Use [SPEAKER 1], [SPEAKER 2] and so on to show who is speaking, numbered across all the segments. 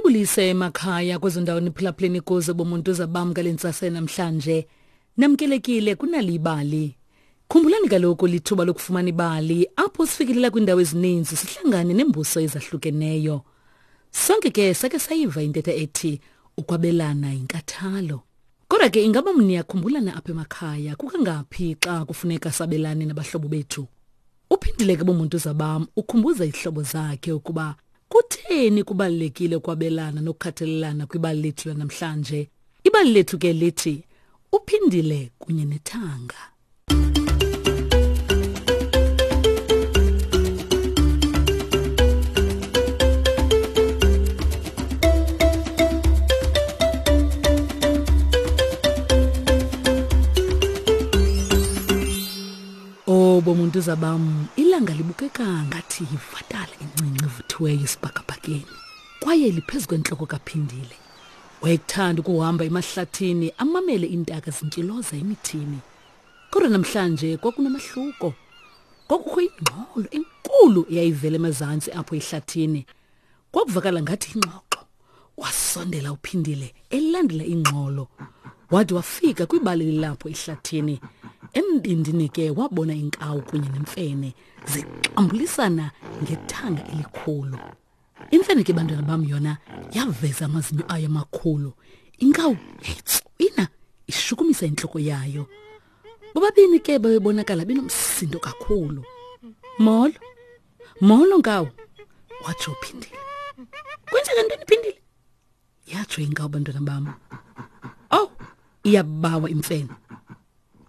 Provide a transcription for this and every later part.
[SPEAKER 1] Mandibulise emakhaya kwezo ndawo niphulaphuleni kuzo bomuntu zabam ngale ntsasa namhlanje. Namkelekile kunali ibali. Khumbulani kaloku lithuba lokufumana ibali apho sifikelela kwiindawo ezininzi sihlangane neembuso ezahlukeneyo. Sonke ke sake sayiva intetha ethi ukwabelana yinkathalo. Kodwa ke ingaba niyakhumbulana apha emakhaya kukangaphi xa kufuneka sabelane nabahlobo bethu? Uphindile ke bomuntu zabam ukhumbuza izihlobo zakhe ukuba kutheni kubalulekile ukwabelana nokukhathalelana kwibali lethu lanamhlanje. Ibali lethu ke lithi uphindile kunye nethanga. Oh bomuntu zabam ilanga libukeka ngathi yivatala encinci evuthiweyo esibhakabhakeni kwaye liphezu kwentloko kaphindile wayekuthanda ukuhamba emahlathini amamele iintaka zintyiloza emithini kodwa namhlanje kwakunomahluko kwakukho ingxolo enkulu eyayivela emazantsi apho ehlathini Kwakuvakala ngathi ingxoxo. Wasondela uphindile elandela ingxolo. Wade wafika kwibali lilapho ehlathini. Embindini ke wabona inkawu kunye nemfene zixambulisana ngethanga elikhulu. Imfene ke bantwana bam yona yaveza amazinyo ayo amakhulu. Inkawu yayitswina ishukumisa intloko yayo. Bobabini ke babebonakala benomsindo kakhulu. Molo. Molo nkawu, watsho uphindile. Kwenzeka ntoni phindile? Yatsho inkawu bantwana bam. Oh, iyabawa imfene.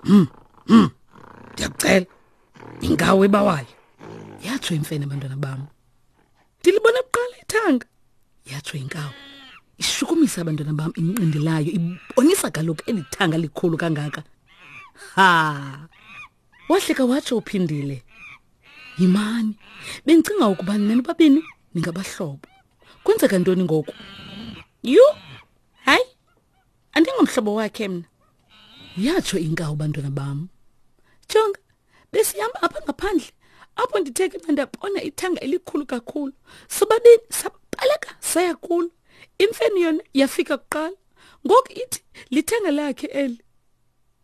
[SPEAKER 1] Hmm. Hmm. Ndiyakucela. Inkawu ebawayo. Yatsho imfene bantwana bam. Ndilibona kuqala ithanga. Yatsho inkawu. Ishukumisa abantwana bam inqindi layo ibonisa kaloku eli thanga likhulu kangaka. Ha! Wahleka watsho uphindile. Yimani, bendicinga ukuba nina nobabini ningabahlobo. Kwenzeka ntoni ngoku? Yhu! Hayi, andingomhlobo wakhe mna. Yatsho inkawu bantwana bam. Jonga, besihamba apha ngaphandle apho ndithe ke ndabona ithanga elikhulu kakhulu. Sobabini sabaleka saya kulo. Imfene yona yafika kuqala. Ngoku ithi lithanga lakhe eli.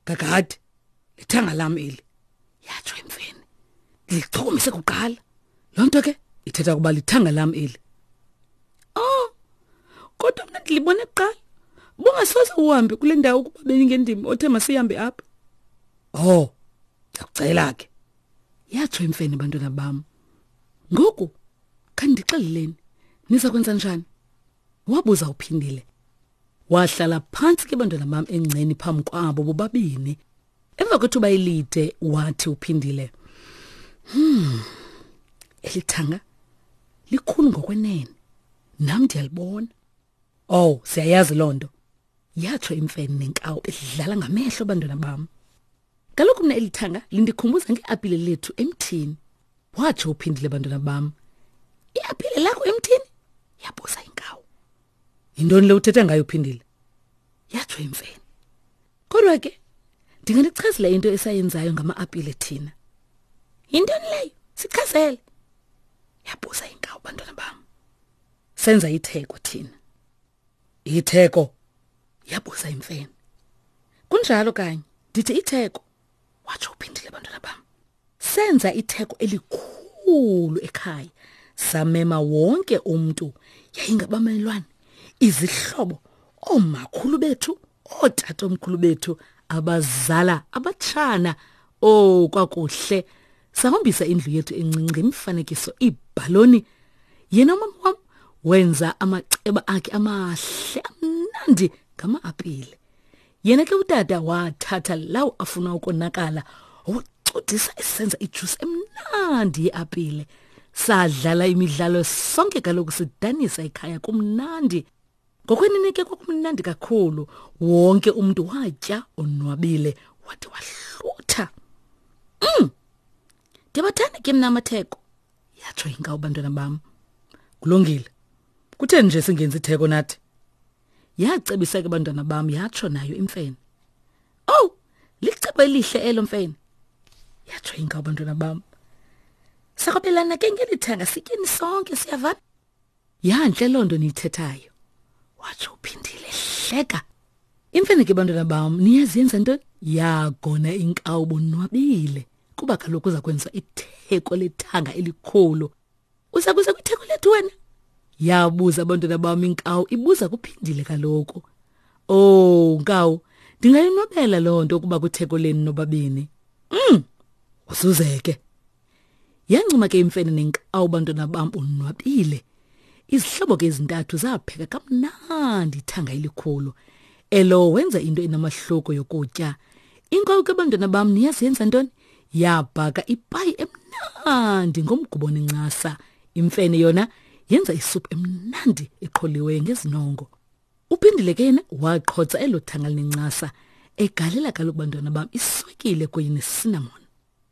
[SPEAKER 1] Kakade lithanga lam eli yatsho imfene ndilichukumise kuqala loo nto ke ithetha ukuba lithanga lam eli oh kodwa mna ndilibone kuqala bungasoze uhambe kule ndawo ukuba bendingendim othe masihambe apha oh ndiyakucela ke yatsho imfene bantwana bam ngoku khandixeleleni niza kwenza njani wabuza uphindile Wahlala phantsi ke bantwana bam engceni phambi kwabo bobabini. Emva kwethuba elide wathi uphindile, "Hmm. Elithanga likhulu ngokwenene. Nam ndiyalibona." Oh, siyayazi loo nto. Yatsho imfene nenkawu idlala ngamehlo bantwana bam. Kaloku mna elithanga lindikhumbuza ngeapile lethu emthini. Watsho uphindile bantwana bam. Iapile lakho emthini? Yabuza inkawu. Yintoni le uthetha ngayo uphindile? Yatsho imfene. Kodwa ke ndinganichazela into esayenzayo ngama-apile thina. Yintoni leyo? Sichazele. Yabuza inkawu bantwana bam. Senza itheko thina. Itheko? Yabuza imfene. Kunjalo kanye, ndithi itheko. Watsho uphindile bantwana bam. Senza itheko elikhulu ekhaya. Samema wonke umntu, yayingabamelwane, izihlobo, oomakhulu bethu, ootatomkhulu bethu, abazala, abatshana. Oh, kwakuhle. Sahombisa indlu yethu encinci ngemifanekiso, iibhaloni. Yena umama wam wenza amaceba akhe amahle amnandi ngama-apile. Yena ke utata wathatha lawo afuna ukonakala wacudisa esenza ijuice emnandi yeapile. Sadlala imidlalo sonke kaloku sidanisa ekhaya kumnandi. Ngokwenene ke kwakumnandi kakhulu. Wonke umuntu watya onwabile wade wahlutha. Ndiyabathanda ke mna amatheko. Yatsho inkawu bantwana bam. Kulungile. Kutheni nje singenzi itheko nathi? Yacebisa ke bantwana bam yatsho nayo imfene. Oh, licebo elihle elo mfene. Yatsho inkawu bantwana bam. Sakwabelana ke ngeli thanga sityeni sonke siyavana. Yantle loo nto niyithethayo. Watsho uPhindile hleka. Imfene ke bantwana bam, niyazi yenza ntoni? Yagona inkawu bonwabile kuba kaloku uza kwenza itheko lethanga elikhulu. Uza kuza kwitheko lethu wena? Yabuza abantwana bam inkawu ibuza kuphindile kaloku. Oh, nkawu, ndingayonwabela loo nto ukuba kwitheko lenu nobabini. Usuzeke. Yancuma ke imfene nenkawu bantwana bam bonwabile. Izihlobo ke ezintathu zapheka kamnandi ithanga elikhulu. Elo wenza into enamahloko yokutya. Inkawu ke bantwana bam niyazi yenza ntoni? Yabhaka ipayi emnandi ngomgubo nencasa. Imfene yona yenza isuphu emnandi eqholiweyo ngezinongo. Uphindile ke yena waqhotsa elo thanga linencasa egalela kaloku bantwana bam iswekile kunye nesinamon.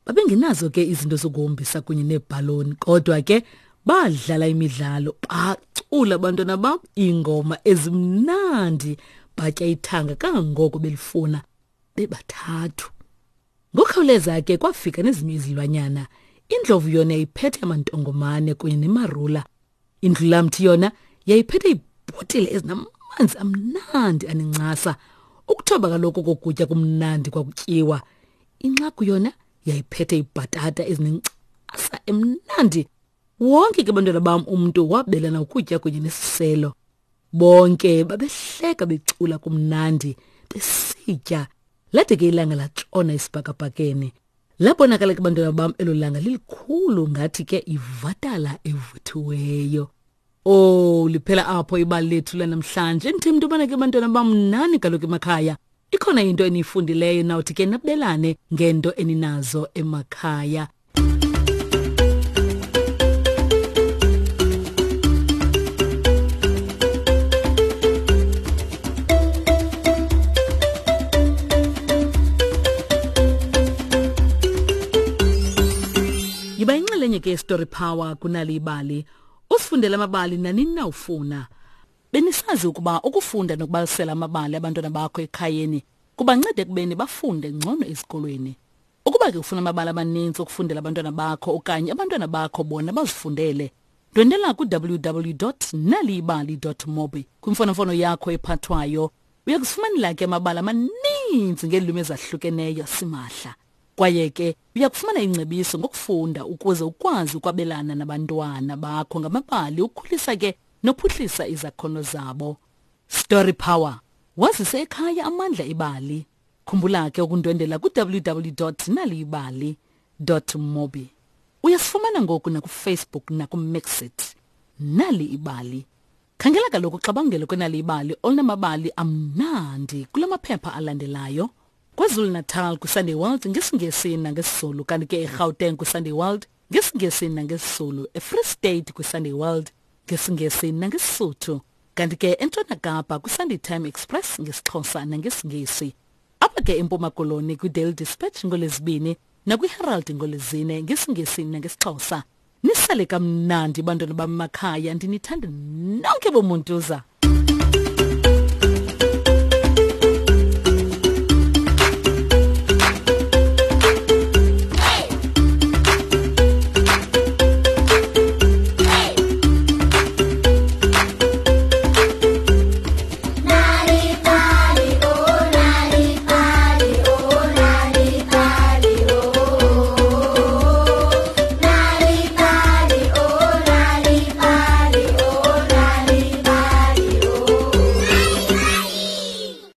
[SPEAKER 1] Babengenazo ke izinto zokuhombisa kunye neebhaloni kodwa ke badlala imidlalo bacula abantwana bam iingoma ezimnandi batya ithanga kangangoko belifuna bebathathu. Ngokukhawuleza ke kwafika nezinye izilwanyana. Indlovu yona yayiphethe amantongomane kunye nemarula. Indlulamthi yona yayiphethe iibhotile ezinamanzi amnandi anencasa. Ukuthoba kaloku kokutya kumnandi kwakutyiwa. Inxagu yona yayiphethe iibhatata ezinencasa emnandi. Wonke ke bantwana bam umntu wabelana ukutya kunye nesiselo. Bonke babehleka becula kumnandi besitya. Lade ke ilanga latshona esibhakabhakeni. Labonakala ke bantwana bam elo langa lilikhulu ngathi ke ivatala evuthiweyo. Oh, liphela apho ibali lethu lanamhlanje. Ndithemba into yobana ke bantwana bam nani kaloku emakhaya. Ikhona into eniyifundileyo nawuthi ke nabelane ngento eninazo emakhaya. Yiba inxalenye ke Story Power kunali ibali. Usifundele amabali nanini na ufuna. Benisazi ukuba ukufunda nokubalisela amabali abantwana bakho ekhayeni kubanceda ekubeni bafunde ngcono ezikolweni. Ukuba ke ufuna amabali amaninzi okufundela abantwana bakho okanye abantwana bakho bona bazifundele, ndwendela ku-www.naliyibali.mobi kwimfonomfono yakho ephathwayo. Uya kuzifumanela ke amabali amaninzi ngeelwimi ezahlukeneyo simahla. Kwaye ke uya kufumana ingcebiso ngokufunda ukuze ukwazi ukwabelana nabantwana bakho ngamabali ukhulisa ke nophuhlisa izakhono zabo. Story Power wazise ekhaya amandla ebali. Khumbula ke ukundwendela ku-www.naliyibali.mobi. Uyasifumana ngoku nakuFacebook nakuMixit. Nali ibali. Khangela kaloku uxabangelo kwenali ibali olunamabali amnandi kula maphepha alandelayo. KwaZulu-Natal kwiSunday World ngesiNgesi nangesiZulu, kanti ke eGauteng kwiSunday World ngesiNgesi nangesiZulu, eFree State kwiSunday World ngesiNgesi nangeSisuthu, kanti ke eNtshona Kapa kwiSunday Time Express ngesiXhosa nangesiNgesi. Apha ke eMpuma Koloni kwiDaily Dispatch ngoLwezibini nakwiHerald ngoLwezine ngesiNgesi nangesiXhosa. Nisale kamnandi bantwana bam emakhaya, ndinithanda nonke bomuntuza.